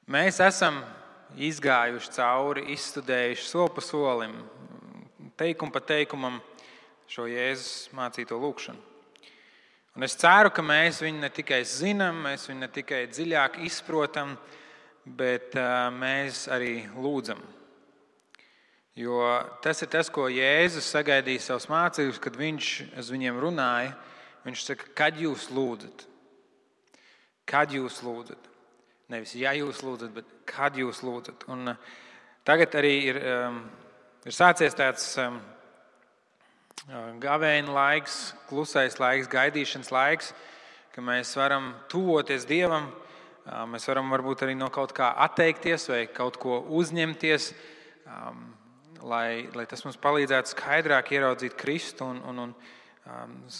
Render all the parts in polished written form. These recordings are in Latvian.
Mēs esam izgājuši cauri, izstudējuši soli pa solim, teikumu pa teikumam šo Jēzus mācīto lūgšanu. Un es ceru, ka mēs viņu ne tikai zinām, mēs viņu ne tikai dziļāk izprotam, bet mēs arī lūdzam. Jo tas ir tas, ko Jēzus sagaidīja savus mācekļus, kad viņš uz viņiem runāja. Viņš saka, kad jūs lūdzat? Kad jūs lūdzat? Nevis ja jūs lūdzat, bet kad jūs lūdzat. Un tagad arī ir sācies tāds gavēņa laiks, klusais laiks, gaidīšanas laiks, ka mēs varam tuvoties Dievam. Mēs varam varbūt arī no kaut kā atteikties vai kaut ko uzņemties, lai tas mums palīdzētu skaidrāk ieraudzīt Kristu un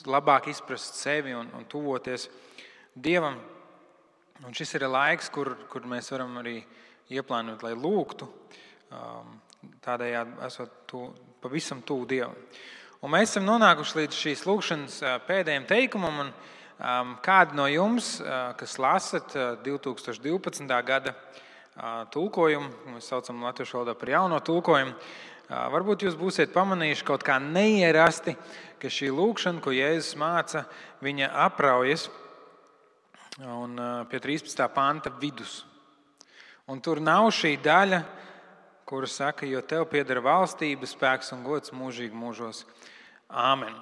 labāk izprast sevi un tuvoties Dievam. Un šis ir laiks, kur mēs varam arī ieplānot, lai lūgtu, tādējādi esot pavisam tuvu Dievam. Un mēs esam nonākuši līdz šīs lūgšanas pēdējiem teikumam, un kādi no jums, kas lasat 2012. Gada tulkojumu, mēs saucam latviešu valodā par jauno tulkojumu, varbūt jūs būsiet pamanījuši kaut kā neierasti, ka šī lūgšana, ko Jēzus māca, viņa apraujas un pie 13. panta vidus. Un tur nav šī daļa, kura saka, jo tev pieder valstība, spēks un gods mūžīgi mūžos. Āmen.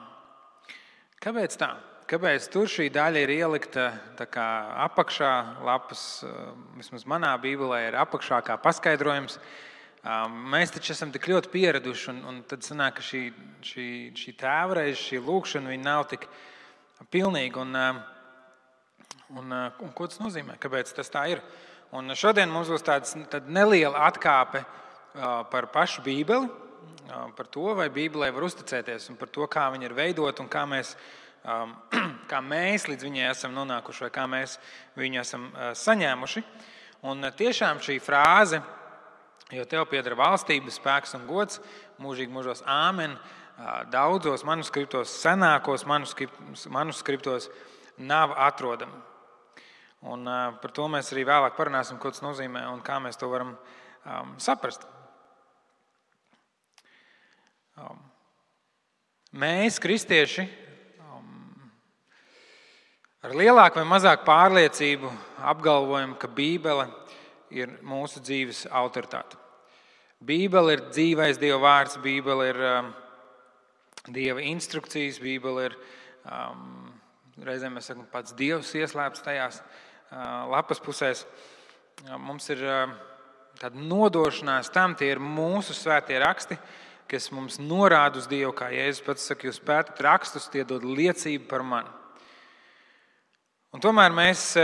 Kāpēc tā? Kāpēc tur šī daļa ir ielikta tā kā apakšā lapas, vismaz manā bībelē ir apakšā kā paskaidrojums. Mēs taču esam tik ļoti pieraduši, un tad sanāk, ka šī tēvreize, šī lūkšana, viņa nav tik pilnīga. Un ko tas nozīmē? Kāpēc tas tā ir? Un šodien mums būs tāda neliela atkāpe par pašu Bībeli, par to, vai Bībelē var uzticēties, un par to, kā viņa ir veidota un kā mēs līdz viņai esam nonākuši, vai kā mēs viņu esam saņēmuši. Un tiešām šī frāze, jo tev pieder valstība, spēks un gods, mūžīgi mūžos āmen, daudzos manuskriptos, senākos manuskriptos nav atrodama. Un par to mēs arī vēlāk parunāsim, ko tas nozīmē un kā mēs to varam saprast. Mēs, kristieši, ar lielāku vai mazāku pārliecību apgalvojam, ka Bībele ir mūsu dzīves autoritāte. Bībele ir dzīvais Dieva vārds, Bībele ir Dieva instrukcijas, Bībele ir, reizēm mēs sakam, pats Dievs ieslēpts tajās lapas pusēs. Mums ir tāda nodošanās tam, tie ir mūsu svētie raksti, kas mums norāda uz Dievu, kā Jēzus pats saka, jūs pētat rakstus, tie dod liecību par mani. Un tomēr mēs,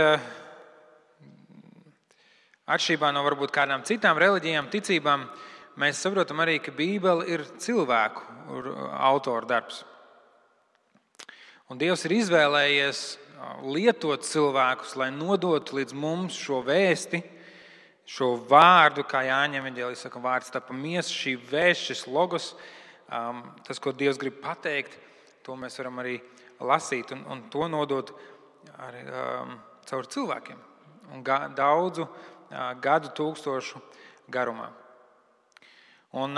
atšķirībā no varbūt kādām citām reliģijām, ticībām, mēs saprotam arī, ka Bībele ir cilvēku autoru darbs. Un Dievs ir izvēlējies lietot cilvēkus, lai nodotu līdz mums šo vēsti, šo vārdu, kā Jāņa evaņģēlijā saka, vārds tapa miesa, šī vēsts, šis logos, tas, ko Dievs grib pateikt, to mēs varam arī lasīt un to nodot arī caur cilvēkiem un daudzu gadu tūkstošu garumā. Un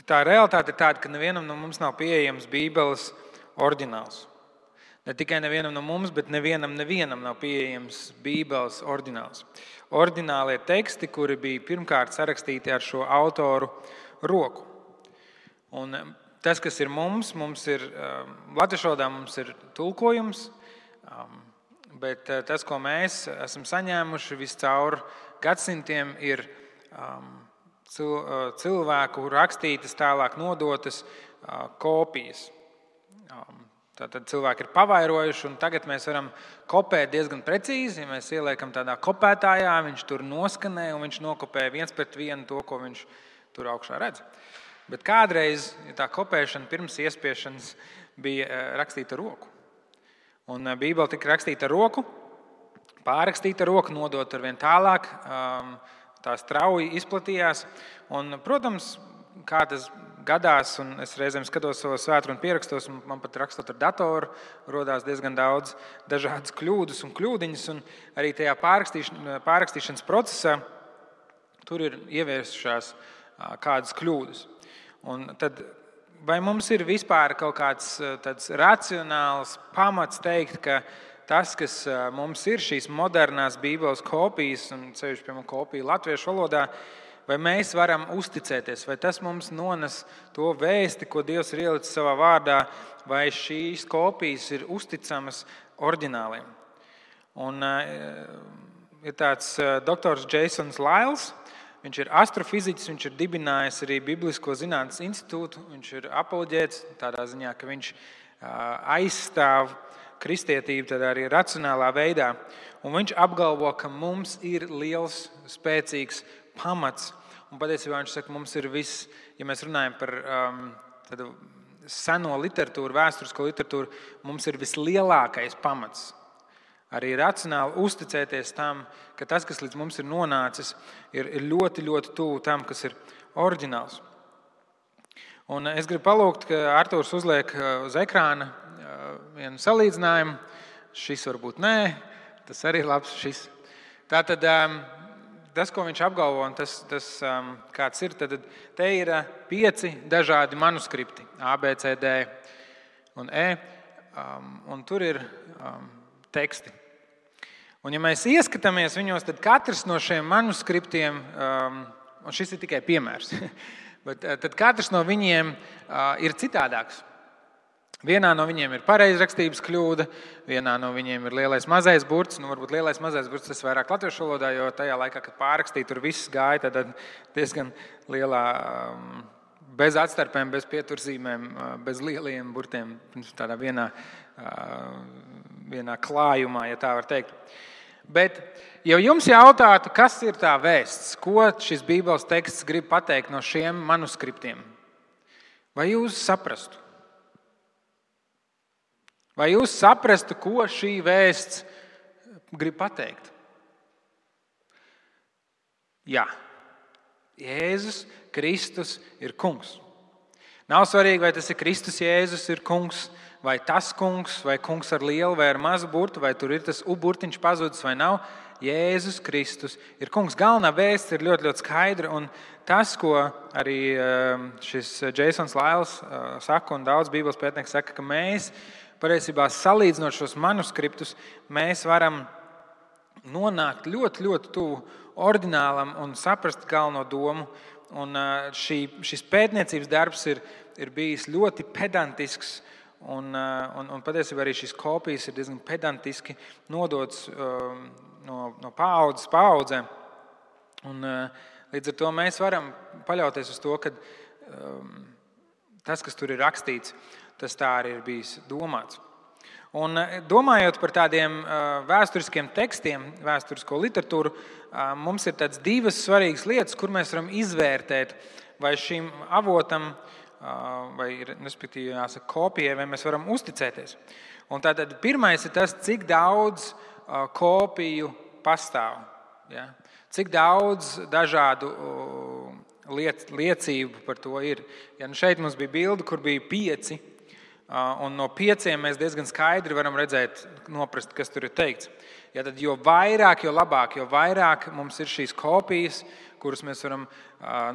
tā realitāte ir tāda, ka nevienam no mums nav pieejams Bībeles oriģināls. Ne tikai nevienam no mums, bet nevienam nav pieejams Bībeles oriģināls. Oriģinālie teksti, kuri bija pirmkārt sarakstīti ar šo autoru roku. Un tas, kas ir mums ir latviešu valodā mums ir tulkojums, bet tas, ko mēs esam saņēmuši viscaur gadsimtiem, ir cilvēku rakstītas, tālāk nodotas kopijas. Tātad cilvēki ir pavairojuši, un tagad mēs varam kopēt diezgan precīzi. Ja mēs ieliekam tādā kopētājā, viņš tur noskanē, un viņš nokopē 1:1 to, ko viņš tur augšā redz. Bet kādreiz, ja tā kopēšana pirms iespiešanas bija rakstīta ar roku. Un Bībele tika rakstīta ar roku, pārrakstīta ar roku, nodot ar vien tālāk, tā strauji izplatījās. Un, protams, kā tas gadās, un es reizēm skatos savos svētkrunu pierakstos, un man pat rakstot ar datoru rodās diezgan daudz dažādas kļūdas un kļūdiņas, un arī tajā pārrakstīšanas procesā tur ir ieviesušās kādas kļūdas. Un tad, vai mums ir vispār kaut kāds tāds racionāls pamats teikt, ka tas, kas mums ir šīs modernās Bībeles kopijas, un sevišķi, piemēram, kopija latviešu valodā, vai mēs varam uzticēties, vai tas mums nones to vēsti, ko Dievs ir ielicis savā vārdā, vai šīs kopijas ir uzticamas oriģināliem. Un ir tāds doktors Jasons Lyles, viņš ir astrofiziķis, viņš ir dibinājis arī Biblisko zinātnes institūtu, viņš ir apoloģēts tādā ziņā, ka viņš aizstāv kristietību tādā arī racionālā veidā. Un viņš apgalvo, ka mums ir liels, spēcīgs pamats. Un patiesībā viņš saka, mums ir viss, ja mēs runājam par seno literatūru, vēsturisko literatūru, mums ir vislielākais pamats. Arī racionāli uzticēties tam, ka tas, kas līdz mums ir nonācis, ir ļoti, ļoti tuvu tam, kas ir oriģināls. Un es gribu palūgt, ka Artūrs uzliek uz ekrāna vienu salīdzinājumu. Šis varbūt nē, tas arī labs šis. Tātad tas, ko viņš apgalvo, un tas kāds ir, tad te ir 5 dažādi manuskripti, A, B, C, D un E, un tur ir teksti. Un ja mēs ieskatāmies viņos, tad katrs no šiem manuskriptiem, un šis ir tikai piemērs, bet tad katrs no viņiem ir citādāks. Vienā no viņiem ir pareizrakstības kļūda, vienā no viņiem ir lielais mazais burts. Varbūt lielais mazais burts tas vairāk latviešu valodā, jo tajā laikā, kad pārrakstīja, tur viss gāja tad diezgan lielā, bez atstarpēm, bez pieturzīmēm, bez lieliem burtiem, tādā vienā klājumā, ja tā var teikt. Bet, ja jums jautātu, kas ir tā vēsts, ko šis Bībeles teksts grib pateikt no šiem manuskriptiem, vai jūs saprastu? Vai jūs saprastu, ko šī vēsts grib pateikt? Jā. Jēzus Kristus ir kungs. Nav svarīgi, vai tas ir Kristus Jēzus ir kungs, vai tas kungs, vai kungs ar lielu vai ar mazu burtu, vai tur ir tas burtiņš pazudis vai nav. Jēzus Kristus ir kungs. Galvenā vēsts ir ļoti, ļoti skaidra, un tas, ko arī šis Jasons Lyles saka, un daudz Bībeles pētnieki saka, ka mēs patiesībā salīdzinot šos manuskriptus, mēs varam nonākt ļoti, ļoti tuvu oriģinālam un saprast galveno domu. Un šis pētniecības darbs ir bijis ļoti pedantisks, un patiesībā arī šīs kopijas ir diezgan pedantiski nodotas no paaudzes paaudzē. Un līdz ar to mēs varam paļauties uz to, ka tas, kas tur ir rakstīts, tas tā arī ir bijis domāts. Un domājot par tādiem vēsturiskiem tekstiem, vēsturisko literatūru, mums ir tādas 2 svarīgas lietas, kur mēs varam izvērtēt, vai šim avotam, vai respektīvi jāsaka kopijai, vai mēs varam uzticēties. Un tātad pirmais ir tas, cik daudz kopiju pastāv. Ja? Cik daudz dažādu liecību par to ir. Ja šeit mums bija bilde, kur bija 5, un no 5 mēs diezgan skaidri varam redzēt, noprast, kas tur ir teikts. Ja tad jo vairāk, jo labāk, jo vairāk mums ir šīs kopijas, kuras mēs varam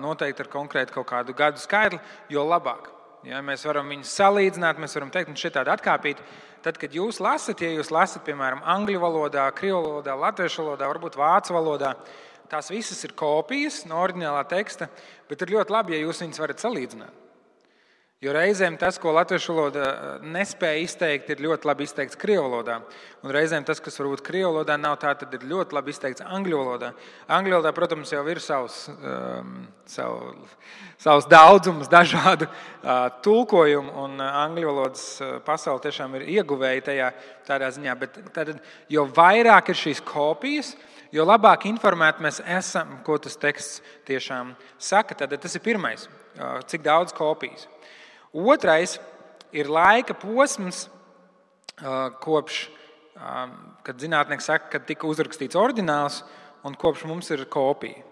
noteikt ar konkrētu kaut kādu gadu skaitli, jo labāk. Ja mēs varam viņus salīdzināt, mēs varam teikt, un šeit tāda atkāpīt. Tad, kad jūs lasat, ja jūs lasat, piemēram, angļu valodā, krievu valodā, latviešu valodā, varbūt vācu valodā, tās visas ir kopijas no oriģinālā teksta, bet ir ļoti labi, ja jūs viņus varat salīdzināt. Jo reizēm tas, ko latviešu valodā nespēja izteikt, ir ļoti labi izteikts krievu valodā. Un reizēm tas, kas varbūt krievu valodā nav tā, tad ir ļoti labi izteikts angļu valodā. Angļu valodā, protams, jau ir savs daudzums dažādu tulkojumu, un angļu valodas pasaule tiešām ir ieguvēja tajā tādā ziņā. Bet tad, jo vairāk ir šīs kopijas, jo labāk informēti mēs esam, ko tas teksts tiešām saka. Tad tas ir pirmais, cik daudz kopijas. Otrais ir laika posms, kopš, kad zinātnieki saka, kad tika uzrakstīts oriģināls un kopš mums ir kopija.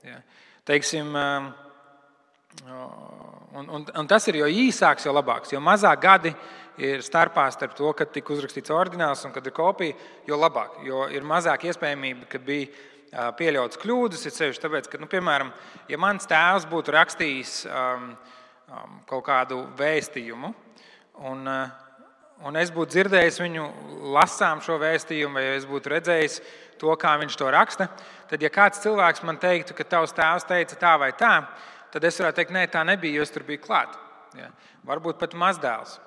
Ja. Teiksim, Un tas ir jo īsāks, jo labāks. Jo mazāk gadi ir starpā starp to, kad tika uzrakstīts oriģināls un kad ir kopija, jo labāk. Jo ir mazāk iespējamība, ka bija pieļautas kļūdas. Ir sevišķi tāpēc, ka, piemēram, ja mans tēvs būtu rakstījis kaut kādu vēstījumu, un es būtu dzirdējis viņu lasām šo vēstījumu, vai es būtu redzējis to, kā viņš to raksta, tad, ja kāds cilvēks man teiktu, ka tavs tēvs teica tā vai tā, tad es varētu teikt, nē, tā nebija, jo es tur biju klāt. Ja? Varbūt pat mazdēls.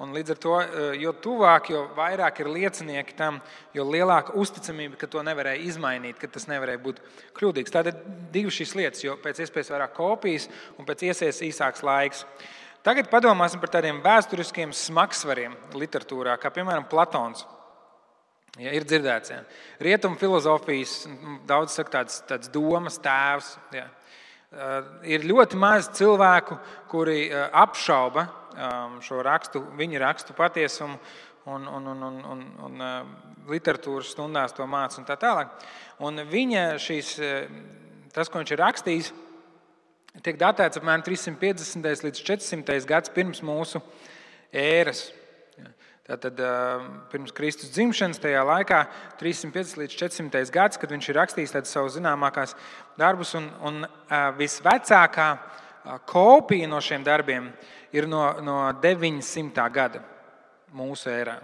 Un līdz ar to, jo tuvāk, jo vairāk ir liecinieki tam, jo lielāka uzticamība, ka to nevarēja izmainīt, ka tas nevarēja būt kļūdīgs. Tātad divas šīs lietas, jo pēc iespējas vairāk kopijas un pēc iespējas īsāks laiks. Tagad padomāsim par tādiem vēsturiskiem smagsvariem literatūrā, kā piemēram Platons. Ja, ir dzirdēts, ja. Rietumu filozofijas, daudz saka tāds domas tēvs. Ja. Ir ļoti maz cilvēku, kuri apšauba šo rakstu, viņa rakstu patiesumu un literatūras stundās to māca un tā tālāk. Un viņa tas, ko viņš ir rakstījis, tiek datēts apmēram 350. līdz 400. gads pirms mūsu ēras. Tātad pirms Kristus dzimšanas tajā laikā 350 līdz 400. gads, kad viņš ir rakstījis tādas savas zināmākās darbus, un visvecākā kopija no šiem darbiem ir no 900. gada mūsu ērā.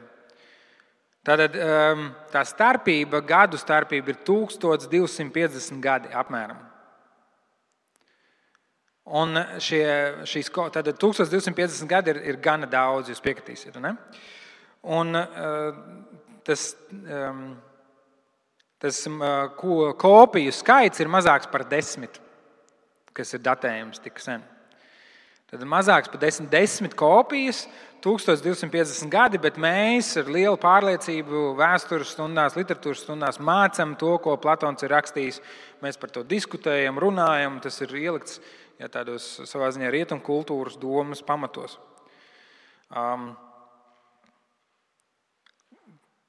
Tātad tā starpība, gadu starpība ir 1250 gadi apmēram. Un tātad 1250 gadi ir gana daudz, jūs piekritīsiet, ne? Un tas kopiju skaits ir mazāks par 10, kas ir datējums tik sen. Tad mazāks par 10 kopijas, 1250 gadi, bet mēs ar lielu pārliecību vēstures stundās, literatūras stundās mācām to, ko Platons ir rakstījis. Mēs par to diskutējam, runājam, tas ir ielikts tādos savā ziņā rietumu kultūras domas pamatos.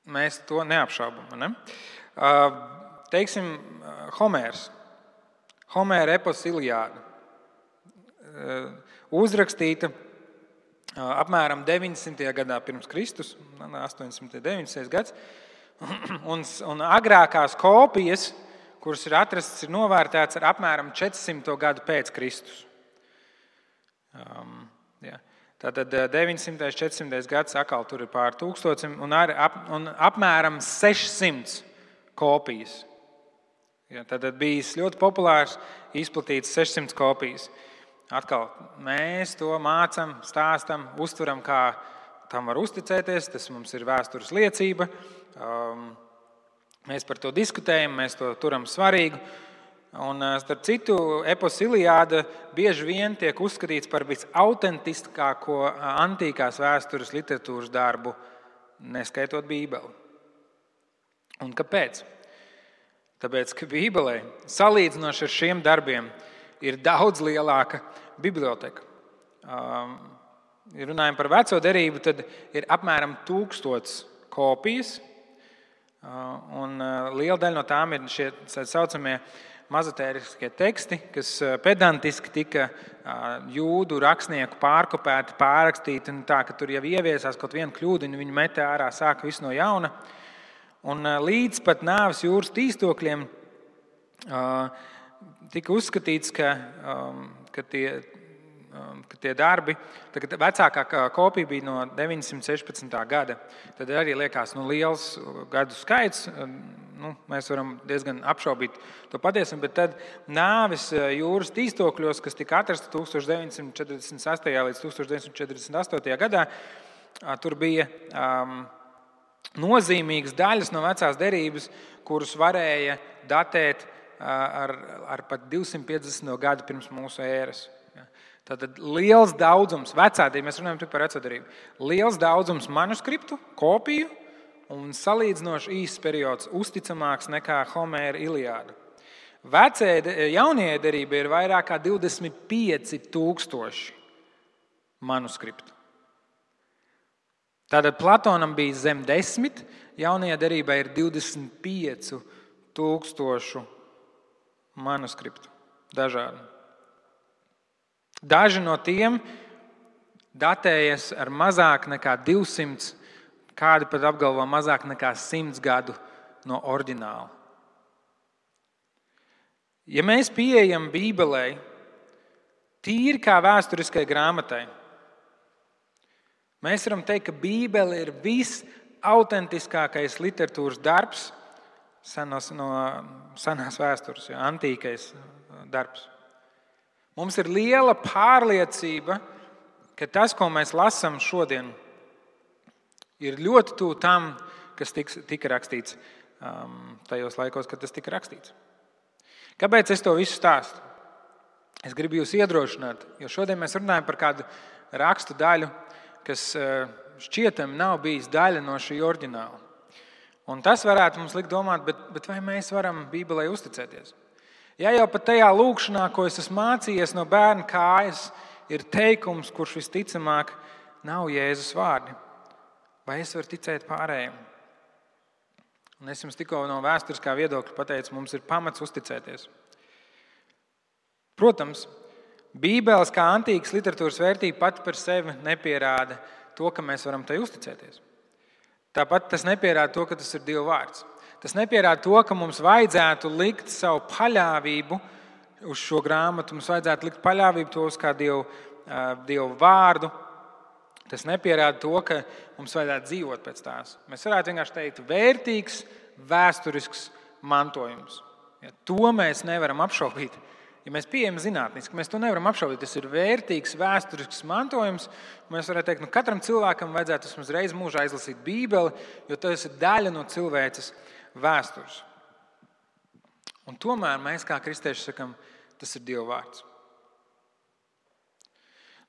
Mēs to neapšaubam. Ne? Teiksim, Homērs. Homēra epos Iliāda. Uzrakstīta apmēram 900. gadā pirms Kristus, 800. 900. gads. Un agrākās kopijas, kuras ir atrastas, ir novērtētas ar apmēram 400. gadu pēc Kristus. Tātad 900. 400. gads atkal tur ir pār 1000 un apmēram 600 kopijas. Tātad bijis ļoti populārs, izplatīts 600 kopijas. Atkal mēs to mācām, stāstam, uztveram, kā tam var uzticēties. Tas mums ir vēstures liecība. Mēs par to diskutējam, mēs to turam svarīgu. Un, starp citu, epos Iliāda bieži vien tiek uzskatīts par visautentiskāko antīkās vēstures literatūras darbu, neskaitot Bībeli. Un kāpēc? Tāpēc, ka Bībelē, salīdzinoši ar šiem darbiem, ir daudz lielāka biblioteka. Ja runājam par veco derību, tad ir apmēram 1000 kopijas, un liela daļa no tām ir šie saucamie mazotēriskie teksti, kas pedantiski tika jūdu rakstnieku pārkopēti, pārrakstīti, tā, ka tur jau ieviesās kaut viena kļūdiņa, viņi metē ārā, sāka visu no jauna. Un līdz pat nāves jūras tīstokļiem tika uzskatīts, ka tie darbi, tagad vecākā kopija bija no 916. gada. Tad arī liekas liels gadu skaits. Mēs varam diezgan apšaubīt to patiesību, bet tad nāves jūras tīstokļos, kas tika atrasta 1948. līdz 1948. gadā, tur bija nozīmīgas daļas no vecās derības, kuras varēja datēt ar pat 250. gadu pirms mūsu ēras. Tātad liels daudzums, mēs runājam par veco derību, liels daudzums manuskriptu, kopiju un salīdzinoši īsts periods, uzticamāks nekā Homēra Iliāda. Jaunajai derībai ir vairāk kā 25,000 manuskriptu. Tātad Platonam bija zem 10, jaunajai derībai ir 25,000 manuskriptu dažādi. Daži no tiem datējas ar mazāk nekā 200, kādi pat apgalvo mazāk nekā 100 gadu no oriģināla. Ja mēs pieejam Bībelei tīri kā vēsturiskai grāmatai, mēs varam teikt, ka Bībele ir visautentiskākais literatūras darbs no senās vēstures, antīkais darbs. Mums ir liela pārliecība, ka tas, ko mēs lasām šodien, ir ļoti tuvu tam, kas tika rakstīts tajos laikos, kad tas tika rakstīts. Kāpēc es to visu stāstu? Es gribu jūs iedrošināt, jo šodien mēs runājam par kādu rakstu daļu, kas šķietami nav bijis daļa no šī oriģināla. Un tas varētu mums likt domāt, bet vai mēs varam Bībelei uzticēties? Ja jau pat tajā lūkšanā, ko es esmu mācījies no bērna kājas, ir teikums, kurš visticamāk nav Jēzus vārdi, vai es varu ticēt pārējiem? Un es jums tikko no vēsturiskā viedokļa pateicu, mums ir pamats uzticēties. Protams, Bībeles kā antīkas literatūras vērtība pati par sevi nepierāda to, ka mēs varam tai uzticēties. Tāpat tas nepierāda to, ka tas ir Dieva vārds. Tas nepierāda to, ka mums vajadzētu likt savu paļāvību uz šo grāmatu, mums vajadzētu likt paļāvību to uz kā Dievu vārdu. Tas nepierāda to, ka mums vajadzētu dzīvot pēc tās. Mēs varētu vienkārši teikt, vērtīgs, vēsturisks mantojums. Ja, to mēs nevaram apšaubīt. Ja mēs pieejam zinātniski, mēs to nevaram apšaubīt. Tas ir vērtīgs, vēsturisks mantojums. Mēs varētu teikt, katram cilvēkam vajadzētu vismaz reizi mūžā izlasīt Bībeli, jo tas ir daļa no cilvēces vēstures. Un tomēr mēs kā kristieši sakam, tas ir Dieva vārds.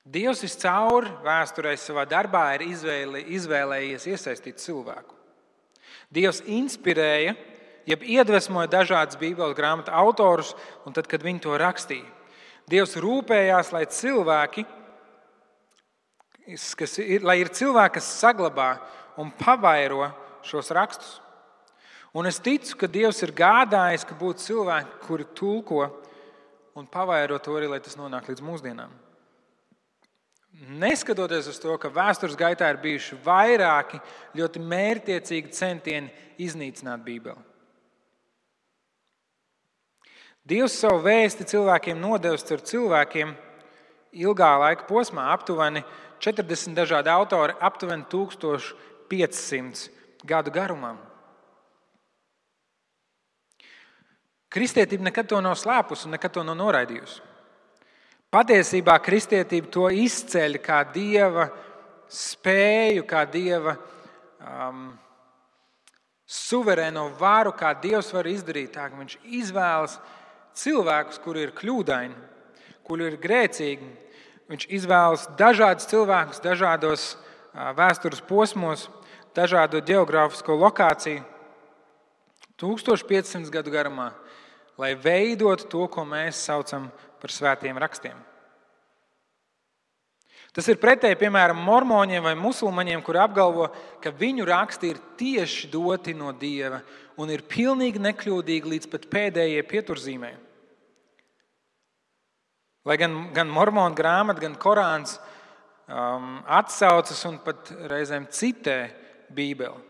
Dievs viscaur vēsturē savā darbā ir izvēlējies iesaistīt cilvēku. Dievs inspirēja, jeb iedvesmoja dažādas Bībeles grāmatu autorus, un tad, kad viņi to rakstīja, Dievs rūpējās, lai ir cilvēki, kas saglabā un pavairo šos rakstus. Un es ticu, ka Dievs ir gādājis, ka būtu cilvēki, kuri tulko un pavairo to arī, lai tas nonāk līdz mūsdienām. Neskatoties uz to, ka vēstures gaitā ir bijuši vairāki ļoti mērķtiecīgi centieni iznīcināt Bībeli. Dievs savu vēsti cilvēkiem nodevis caur cilvēkiem ilgā laika posmā, aptuveni 40 dažādi autori, aptuveni 1500 gadu garumā. Kristietība nekad to nav slēpusi un nekad to nav noraidījusi. Patiesībā kristietība to izceļ kā Dieva spēju, kā Dieva suverēno varu, kā Dievs var izdarīt tā, ka viņš izvēlas cilvēkus, kuri ir kļūdaini, kuri ir grēcīgi. Viņš izvēlas dažādus cilvēkus, dažādos vēstures posmos, dažādo geogrāfisko lokāciju 1500 gadu garumā, lai veidotu to, ko mēs saucam par svētiem rakstiem. Tas ir pretēji, piemēram, mormoņiem vai musulmaņiem, kuri apgalvo, ka viņu raksti ir tieši doti no Dieva un ir pilnīgi nekļūdīgi līdz pat pēdējai pieturzīmei. Lai gan mormonu grāmata, gan Korāns atsaucas un pat reizēm citē Bībeli.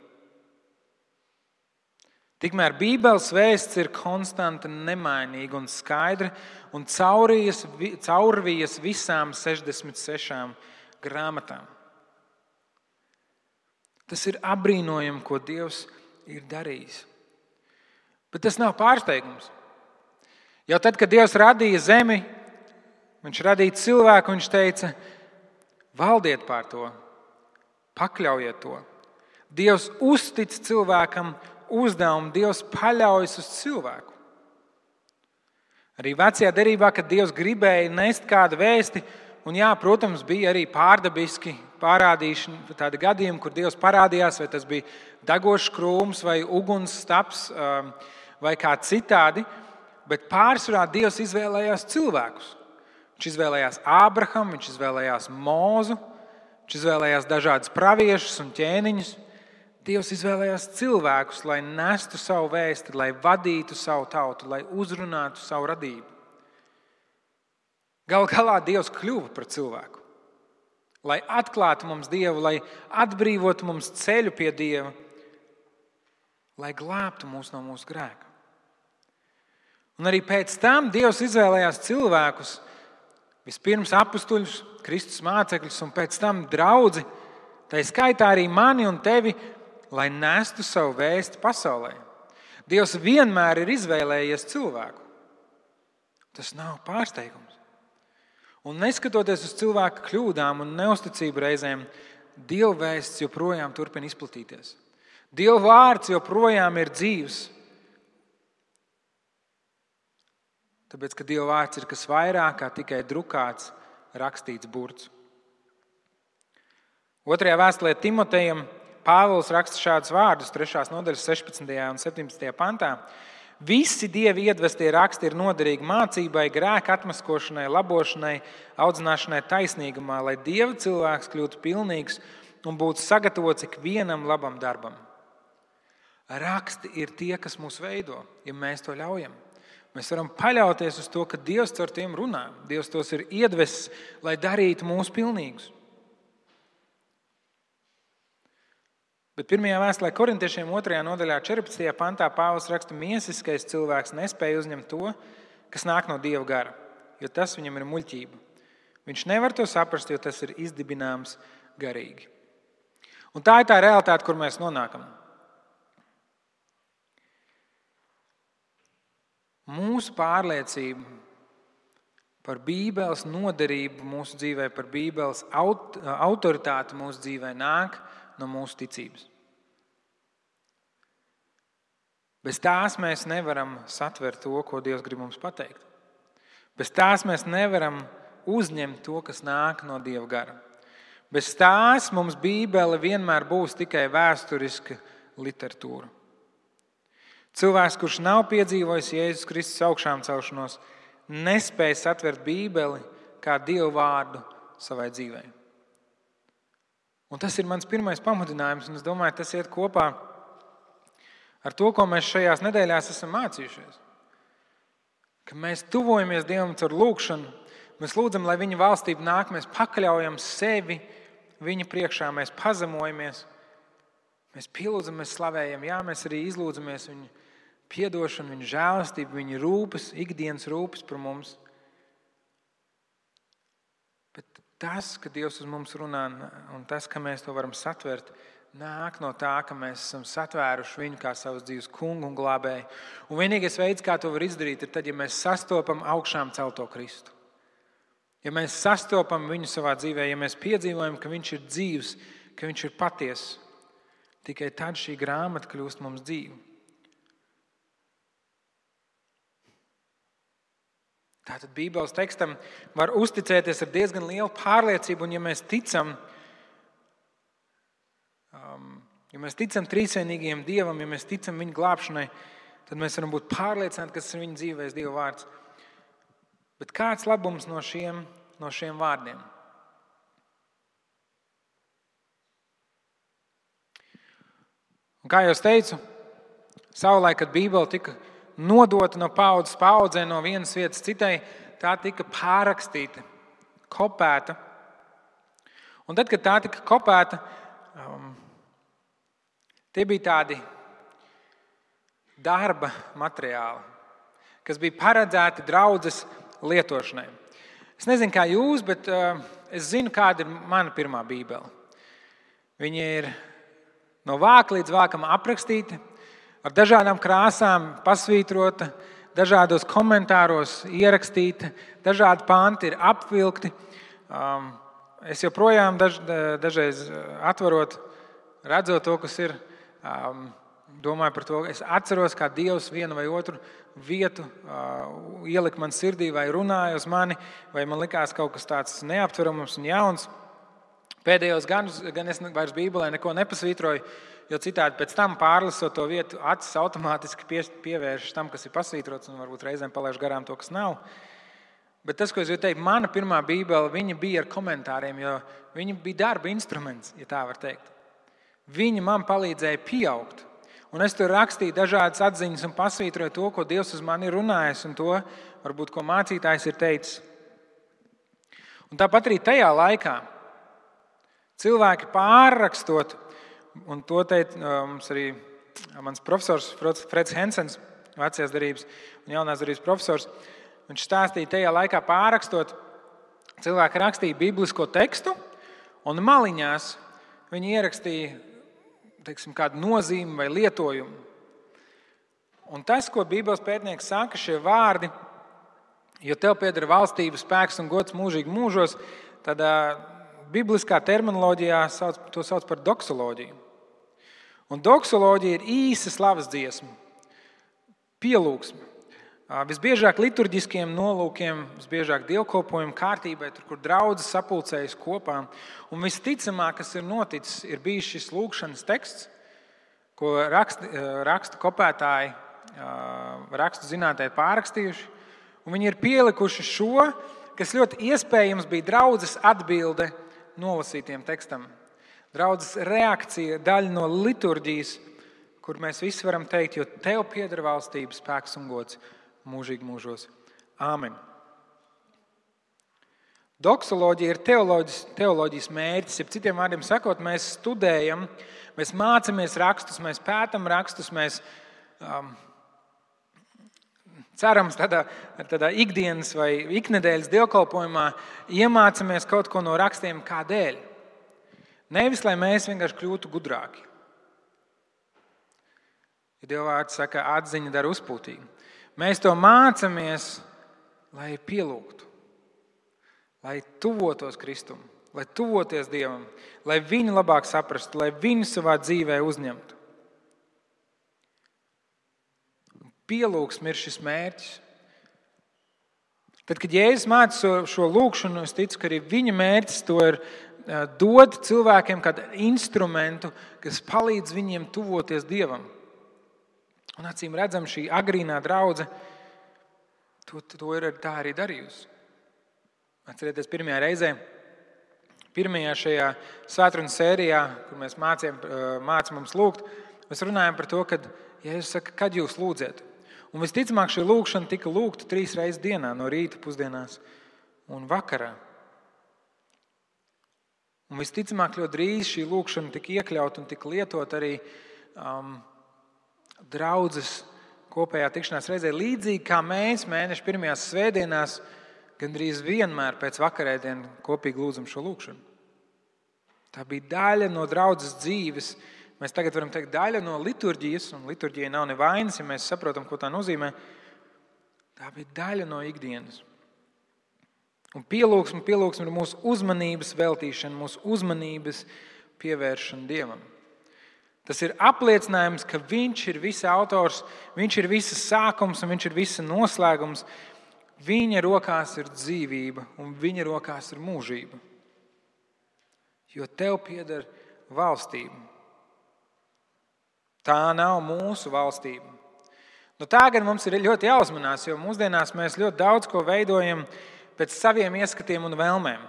Tikmēr Bībeles vēsts ir konstanta, nemainīga un skaidra un caurvijas visām 66 grāmatām. Tas ir apbrīnojami, ko Dievs ir darījis. Bet tas nav pārsteigums. Jau tad, kad Dievs radīja zemi, viņš radīja cilvēku, viņš teica, valdiet pār to, pakļaujiet to. Dievs uztic cilvēkam uzdevumu, Dievs paļaujas uz cilvēku. Arī vecajā derībā, kad Dievs gribēja nest kādu vēsti, un jā, protams, bija arī pārdabiski parādīšana, tādi gadījumi, kur Dievs parādījās, vai tas bija degošs krūms vai uguns staps vai kā citādi, bet pārsvarā Dievs izvēlējās cilvēkus. Viņš izvēlējās Ābrahamu, viņš izvēlējās Mūzu, viņš izvēlējās dažādus praviešus un ķēniņus. Dievs izvēlējās cilvēkus, lai nestu savu vēsti, lai vadītu savu tautu, lai uzrunātu savu radību. Galu galā Dievs kļuva par cilvēku, lai atklātu mums Dievu, lai atbrīvotu mums ceļu pie Dieva, lai glābtu mūs no mūsu grēka. Un arī pēc tam Dievs izvēlējās cilvēkus, vispirms apustuļus, Kristus mācekļus un pēc tam draudzi, tā skaitā arī mani un tevi, lai nestu savu vēsti pasaulē. Dievs vienmēr ir izvēlējies cilvēku. Tas nav pārsteigums. Un neskatoties uz cilvēka kļūdām un neusticību reizēm, Dieva vēsts joprojām turpina izplatīties. Dieva vārds joprojām ir dzīvs. Tāpēc, ka Dieva vārds ir kas vairāk kā tikai drukāts, rakstīts burts. 2. vēstulē Timotejam Pāvils raksta šādus vārdus 3. nodaļas 16. un 17. pantā. Visi Dieva iedvestie raksti ir noderīgi mācībai, grēka atmaskošanai, labošanai, audzināšanai taisnīgumā, lai Dieva cilvēks kļūtu pilnīgs un būtu sagatavots ikvienam labam darbam. Raksti ir tie, kas mūs veido, ja mēs to ļaujam. Mēs varam paļauties uz to, ka Dievs caur tiem runā. Dievs tos ir iedvesis, lai darītu mūs pilnīgus. Bet 1. vēstulē Korintiešiem 2. nodaļā 14. pantā Pāvils raksta, miesiskais cilvēks nespēja uzņemt to, kas nāk no Dieva gara, jo tas viņam ir muļķība. Viņš nevar to saprast, jo tas ir izdibināms garīgi. Un tā ir tā realitāte, kur mēs nonākam. Mūsu pārliecība par Bībeles noderību mūsu dzīvē, par Bībeles autoritāti mūsu dzīvē nāk no mūsu ticības. Bez tās mēs nevaram satvert to, ko Dievs grib mums pateikt. Bez tās mēs nevaram uzņemt to, kas nāk no Dieva gara. Bez tās mums Bībele vienmēr būs tikai vēsturiska literatūra. Cilvēks, kurš nav piedzīvojis Jēzus Kristus augšām celšanos, nespēja satvert Bībeli kā Dieva vārdu savai dzīvei. Un tas ir mans pirmais pamudinājums, un es domāju, tas iet kopā ar to, ko mēs šajās nedēļās esam mācījušies. Ka mēs tuvojamies Dievam caur lūgšanu, mēs lūdzam, lai Viņa valstība nāk, mēs pakļaujam sevi Viņa priekšā, mēs pazemojamies, mēs pielūdzam, mēs slavējam, jā, mēs arī izlūdzamies Viņa piedošanu, Viņa žēlastību, Viņa rūpes, ikdienas rūpes par mums. Bet tas, ka Dievs uz mums runā, un tas, ka mēs to varam satvert, nāk no tā, ka mēs esam satvēruši Viņu kā savas dzīves kungu un glābēju. Un vienīgais veids, kā to var izdarīt, ir tad, ja mēs sastopam augšām celto Kristu. Ja mēs sastopam Viņu savā dzīvē, ja mēs piedzīvojam, ka Viņš ir dzīvs, ka Viņš ir patiess, tikai tad šī grāmata kļūst mums dzīva. Tātad Bībeles tekstam var uzticēties ar diezgan lielu pārliecību, un ja mēs ticam trīsvienīgajam Dievam, ja mēs ticam Viņa glābšanai, tad mēs varam būt pārliecināti, ka tas ir Viņa dzīvēs Dieva vārds. Bet kāds labums no šiem vārdiem? Un kā jau es teicu, savulaik, kad Bībele tika nodota no paudzes paudzē, no vienas vietas citai, tā tika pārrakstīta, kopēta. Un tad, kad tā tika kopēta, tie bija tādi darba materiāli, kas bija paredzēti draudzes lietošanai. Es nezinu, kā jūs, bet es zinu, kāda ir mana pirmā Bībele. Viņa ir no vāka līdz vākam aprakstīta, ar dažādām krāsām pasvītrota, dažādos komentāros ierakstīta, dažādi panti ir apvilkti. Es joprojām dažreiz atverot, redzot to, kas ir, domāju par to. Es atceros, kā Dievs vienu vai otru vietu ielika man sirdī vai runāja uz mani, vai man likās kaut kas tāds neaptverams un jauns. Pēdējos gadus gan es vairs Bībelē neko nepasvītroju, jo citādi pēc tam pārlasot to vietu, acis automātiski pievēršas tam, kas ir pasvītrots, un varbūt reizēm palaiž garām to, kas nav. Bet tas, ko es gribu teikt, mana pirmā Bībele, viņa bija ar komentāriem, jo viņa bija darba instruments, ja tā var teikt. Viņa man palīdzēja pieaugt. Un es tur rakstīju dažādas atziņas un pasvītroju to, ko Dievs uz mani ir runājis, un to, varbūt, ko mācītājs ir teicis. Un tāpat arī tajā laikā cilvēki pārrakstot, un to teica mums arī mans profesors Freds Hensens, vecajās derības un jaunās derības profesors. Viņš stāstīja, tajā laikā pārrakstot, cilvēki rakstīja biblisko tekstu, un maliņās viņi ierakstīja, teiksim, kādu nozīmi vai lietojumu. Un tas, ko Bībeles pētnieks saka, šie vārdi, jo tev pieder valstība, spēks un gods mūžīgi mūžos, tad bibliskā terminoloģijā to sauc par doksoloģiju. Un doksoloģija ir īsa slavas dziesma, pielūgsme. Visbiežāk liturģiskiem nolūkiem, visbiežāk dievkalpojumu kārtībai, tur, kur draudzes sapulcējas kopā. Un visticamāk, kas ir noticis, ir bijis šis lūgšanas teksts, ko rakstu kopētāji, rakstu zinātēji pārrakstījuši. Un viņi ir pielikuši šo, kas ļoti iespējams bija draudzes atbilde nolasītiem tekstam. Draudzes reakcija, daļa no liturģijas, kur mēs visi varam teikt, jo tev pieder valstība, spēks un gods mūžīgi mūžos. Āmen. Doksoloģija ir teoloģijas mērķis. Ja citiem vārdiem sakot, mēs studējam, mēs mācāmies rakstus, mēs pētam rakstus, mēs cerams tādā ikdienas vai iknedēļas dievkalpojumā iemācāmies kaut ko no rakstiem kādēļ. Nevis, lai mēs vienkārši kļūtu gudrāki. Ja Dieva vārds saka, atziņa dara uzpūtīgu. Mēs to mācāmies, lai pielūgtu, lai tuvotos Kristum, lai tuvoties Dievam, lai viņu labāk saprastu, lai viņu savā dzīvē uzņemtu. Pielūgsme ir šis mērķis. Tad, kad Jēzus māca šo lūgšanu, es ticu, ka arī viņa mērķis to ir dot cilvēkiem kādu instrumentu, kas palīdz viņiem tuvoties Dievam. Un acīm redzam, šī agrīnā draudze to ir tā arī darījusi. Atcerieties, pirmajā reizē, pirmajā šajā svētrunas sērijā, kur mēs mācām mums lūgt, mēs runājam par to, kad Jēzus saka, kad jūs lūdziet. Un visticamāk šī lūgšana tika lūgta 3 reizes dienā, no rīta, pusdienās un vakarā. Un visticamāk ļoti drīz šī lūgšana tika iekļauta un tika lietot arī draudzes kopējā tikšanās reizē, līdzīgi kā mēs mēneša pirmajās svētdienās gandrīz vienmēr pēc vakarēdienu kopīgi lūdzam šo lūgšanu. Tā bija daļa no draudzes dzīves. Mēs tagad varam teikt daļa no liturģijas, un liturģija nav nevainas, ja mēs saprotam, ko tā nozīmē. Tā bija daļa no ikdienas. Un pielūgsme ir mūsu uzmanības veltīšana, mūsu uzmanības pievēršana Dievam. Tas ir apliecinājums, ka Viņš ir visa autors, Viņš ir visas sākums un Viņš ir visa noslēgums. Viņa rokās ir dzīvība un Viņa rokās ir mūžība. Jo tev pieder valstība. Tā nav mūsu valstība. Nu, tā gan mums ir ļoti jāuzmanās, jo mūsdienās mēs ļoti daudz ko veidojam pēc saviem ieskatiem un vēlmēm.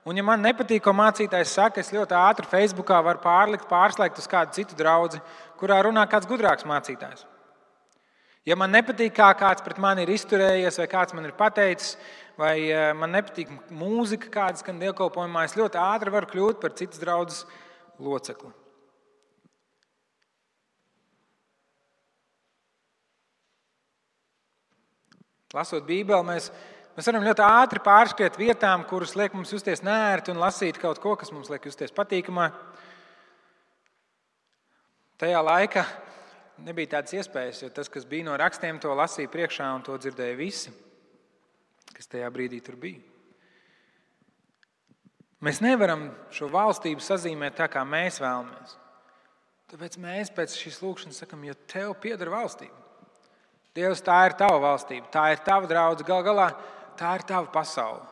Un, ja man nepatīk, ko mācītājs saka, es ļoti ātri Facebookā varu pārslēgt uz kādu citu draudzi, kurā runā kāds gudrāks mācītājs. Ja man nepatīk, kā kāds pret mani ir izturējies, vai kāds man ir pateicis, vai man nepatīk mūzika, kāda skan dievkalpojumā, es ļoti ātri varu kļūt par citas draudzes locekli. Lasot Bībeli, mēs varam ļoti ātri pārskriet vietām, kuras liek mums justies neērti un lasīt kaut ko, kas mums liek justies patīkamā. Tajā laikā nebija tādas iespējas, jo tas, kas bija no rakstiem, to lasīja priekšā un to dzirdēja visi, kas tajā brīdī tur bija. Mēs nevaram šo valstību sazīmēt tā, kā mēs vēlamies. Tāpēc mēs pēc šīs lūkšanas sakam, jo tev pieder valstība. Dievs, tā ir tava valstība, tā ir tava draudze, gal galā tā ir tava pasaule.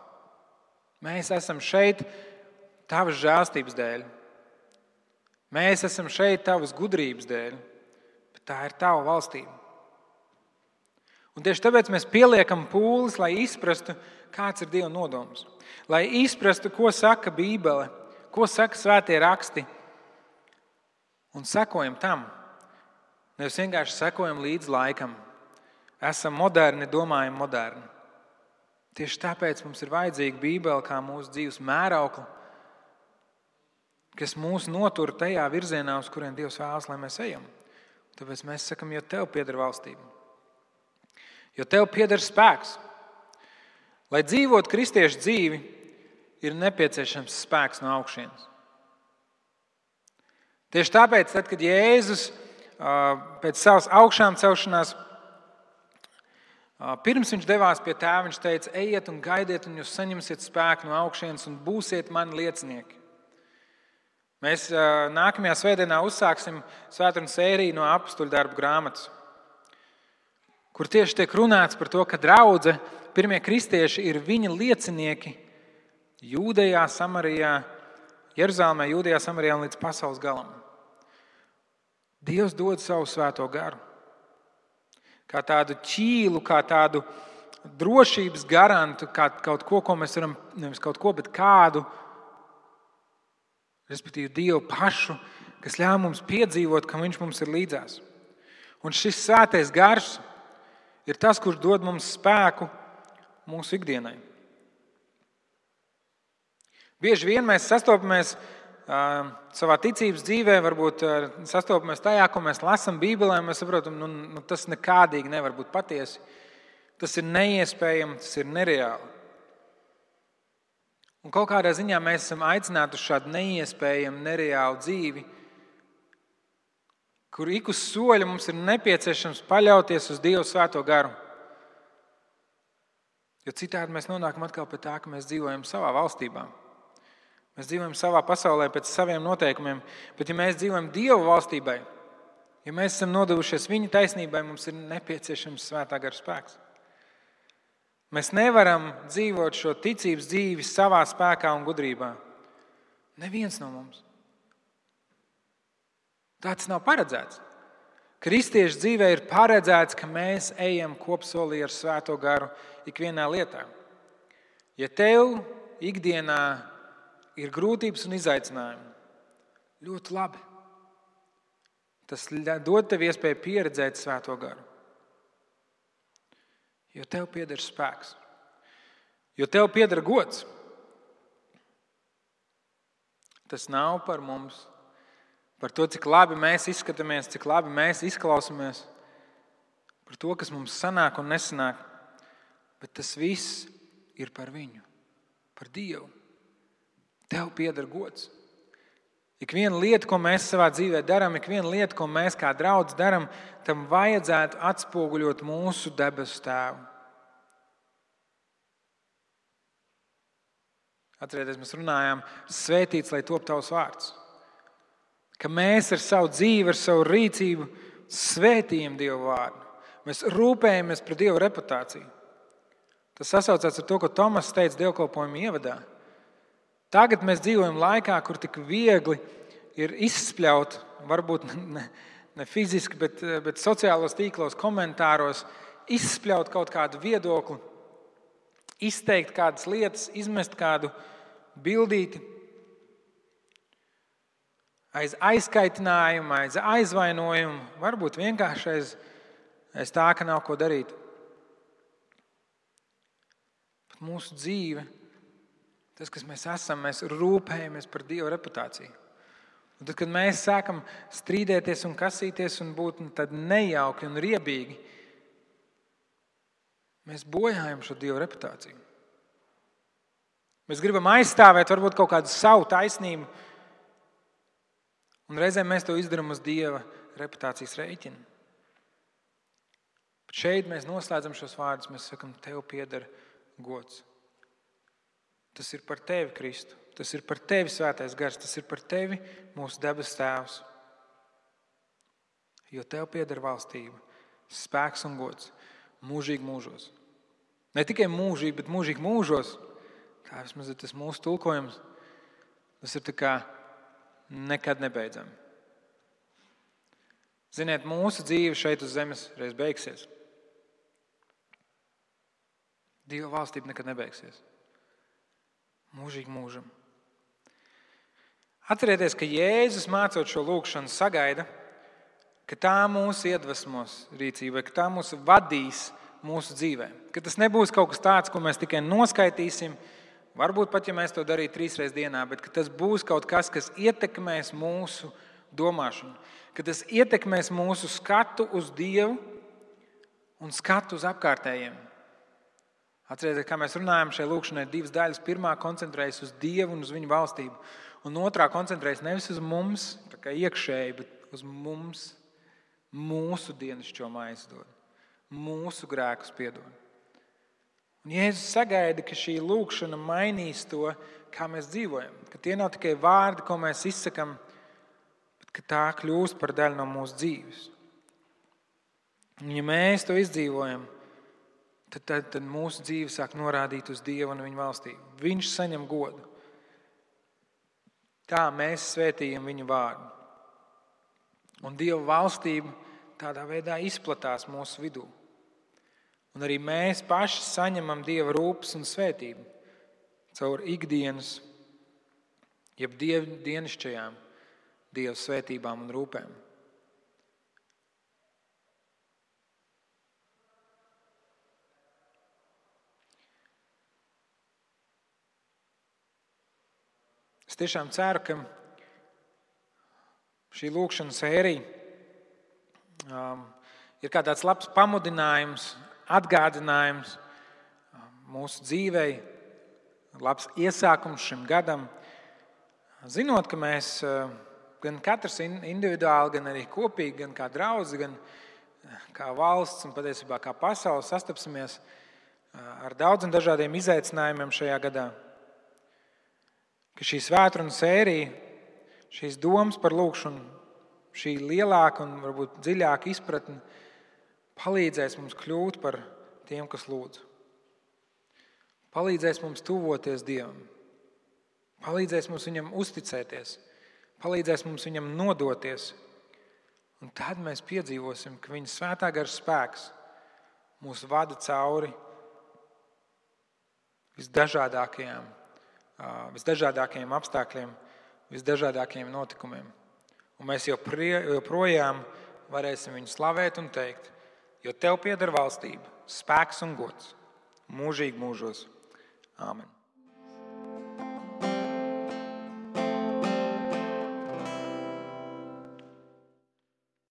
Mēs esam šeit tavas žēlstības dēļ. Mēs esam šeit tavas gudrības dēļ, bet tā ir tava valstība. Un tieši tāpēc mēs pieliekam pūles, lai izprastu, kāds ir Dieva nodoms. Lai izprastu, ko saka Bībele, ko saka svētie raksti. Un sekojam tam. Nevis vienkārši sekojam līdz laikam. Esam moderni, domājam moderni. Tieši tāpēc mums ir vajadzīga Bībele kā mūsu dzīves mēraukla, kas mūs notur tajā virzienā, uz kurien Dievs vēlas, lai mēs ejam. Tāpēc mēs sakam, jo tev pieder valstība. Jo tev pieder spēks. Lai dzīvot kristiešu dzīvi, ir nepieciešams spēks no augšienes. Tieši tāpēc, tad, kad Jēzus pēc savas augšām celšanās, pirms viņš devās pie tēva, viņš teica, ejiet un gaidiet, un jūs saņemsiet spēku no augšienes un būsiet mani liecinieki. Mēs nākamajā svētdienā uzsāksim svētdienas sēriju no Apostuļu darbu grāmatas, kur tieši tiek runāts par to, ka draudze, pirmie kristieši ir viņa liecinieki Jūdejā, Samarijā, Jeruzalemē, Jūdejā, Samarijā un līdz pasaules galam. Dievs dod savu svēto garu. Kā tādu ķīlu, kā tādu drošības garantu, kā kaut ko, ko mēs varam, nevis kaut ko, bet kādu, respektīvi Dievu pašu, kas ļauj mums piedzīvot, ka Viņš mums ir līdzās. Un šis svētais gars ir tas, kurš dod mums spēku mūsu ikdienai. Bieži vien mēs sastopamies savā ticības dzīvē, varbūt sastopamies tajā, ko mēs lasām Bībelē, un mēs saprotam, tas nekādīgi nevar būt patiesi. Tas ir neiespējami, tas ir nereāli. Un kaut kādā ziņā mēs esam aicināti uz šādu neiespējamu, nereālu dzīvi, kur ik uz soļa mums ir nepieciešams paļauties uz Dievu svēto garu. Jo citādi mēs nonākam atkal pie tā, ka mēs dzīvojam savā valstībā. Mēs dzīvojam savā pasaulē pēc saviem noteikumiem, bet ja mēs dzīvojam Dieva valstībai, ja mēs esam nodevušies Viņa taisnībai, mums ir nepieciešams svētā gara spēks. Mēs nevaram dzīvot šo ticības dzīvi savā spēkā un gudrībā. Neviens no mums. Tāds nav paredzēts. Kristiešu dzīvē ir paredzēts, ka mēs ejam kopsolī ar svēto garu ikvienā lietā. Ja tev ikdienā ir grūtības un izaicinājumi, ļoti labi. Tas dod tev iespēju pieredzēt svēto garu. Jo tev pieder spēks. Jo tev pieder gods. Tas nav par mums, par to, cik labi mēs izskatāmies, cik labi mēs izklausāmies, par to, kas mums sanāk un nesanāk, bet tas viss ir par Viņu, par Dievu. Tev pieder gods. Ik viena lieta, ko mēs savā dzīvē darām, ik viena lieta, ko mēs kā draudz darām, tam vajadzētu atspoguļot mūsu debesu Tēvu. Atcerieties, mēs runājām, svētīts, lai top tavs vārds. Ka mēs ar savu dzīvi, ar savu rīcību svētījam Dievu vārdu. Mēs rūpējamies par Dievu reputāciju. Tas sasaucās ar to, ko Tomas teica dievkalpojuma ievadā. Tagad mēs dzīvojam laikā, kur tik viegli ir izspļaut, varbūt ne fiziski, bet sociālos tīklos, komentāros, izspļaut kaut kādu viedokli, izteikt kādas lietas, izmest kādu bildīti, aiz aizkaitinājumu, aiz aizvainojumu, varbūt vienkārši aiz tā, ka nav ko darīt. Bet mūsu dzīve, tas, kas mēs esam, mēs rūpējamies par Dieva reputāciju. Un tad, kad mēs sākam strīdēties un kasīties un būt tad nejauki un riebīgi, mēs bojājam šo Dieva reputāciju. Mēs gribam aizstāvēt varbūt kaut kādu savu taisnību, un reizēm mēs to izdarām uz Dieva reputācijas rēķina. Bet šeit mēs noslēdzam šos vārdus, mēs sakam, tev pieder gods. Tas ir par tevi, Kristu. Tas ir par tevi, svētais gars. Tas ir par tevi, mūsu debes Tēvs. Jo tev pieder valstība, spēks un gods mūžīgi mūžos. Ne tikai mūžīgi, bet mūžīgi mūžos. Tā vismaz ir tas mūsu tulkojums. Tas ir tā kā nekad nebeidzami. Ziniet, mūsu dzīve šeit uz zemes reiz beigsies. Dieva valstība nekad nebeigsies. Mūžīgi mūžam. Atcerieties, ka Jēzus mācot šo lūgšanu sagaida, ka tā mūs iedvesmos rīcībai, ka tā mūs vadīs mūsu dzīvē. Ka tas nebūs kaut kas tāds, ko mēs tikai noskaitīsim, varbūt pat, ja mēs to darītu 3 reizes dienā, bet ka tas būs kaut kas, kas ietekmēs mūsu domāšanu, ka tas ietekmēs mūsu skatu uz Dievu un skatu uz apkārtējiem. Atcerieties, kā mēs runājam, šai lūkšanai ir 2 daļas. Pirmā koncentrējas uz Dievu un uz Viņa valstību, un otrā koncentrējas nevis uz mums, tā kā iekšēji, bet uz mums, mūsu dienascho maizi dod, mūsu grēkus piedod. Un Jēzus sagaida, ka šī lūkšana mainīs to, kā mēs dzīvojam, ka tie nav tikai vārdi, ko mēs izsakam, bet ka tā kļūst par daļu no mūsu dzīves. Un ja mēs to izdzīvojam, tad mūsu dzīve sāk norādīt uz Dievu un Viņa valstību. Viņš saņem godu. Tā mēs svētījam Viņa vārdu. Un Dieva valstība tādā veidā izplatās mūsu vidū. Un arī mēs paši saņemam Dieva rūpes un svētību caur ikdienas, jeb dienasčajām Dieva svētībām un rūpēm. Es tiešām ceru, ka šī lūkšana sērija ir kā tāds labs pamudinājums, atgādinājums mūsu dzīvei, labs iesākums šim gadam. Zinot, ka mēs gan katrs individuāli, gan arī kopīgi, gan kā draudzi, gan kā valsts un patiesībā kā pasaule sastapsimies ar daudziem dažādiem izaicinājumiem šajā gadā. Ka šī svētkrunu sērija, šīs domas par lūkšanu, šī lielāka un varbūt dziļāka izpratne palīdzēs mums kļūt par tiem, kas lūdz. Palīdzēs mums tuvoties Dievam. Palīdzēs mums Viņam uzticēties. Palīdzēs mums Viņam nodoties. Un tad mēs piedzīvosim, ka Viņa svētā gara spēks mūs vada cauri visdažādākajiem apstākļiem, visdažādākajiem notikumiem. Un mēs joprojām varēsim Viņu slavēt un teikt, jo Tev pieder valstība, spēks un gods mūžīgi mūžos. Āmen.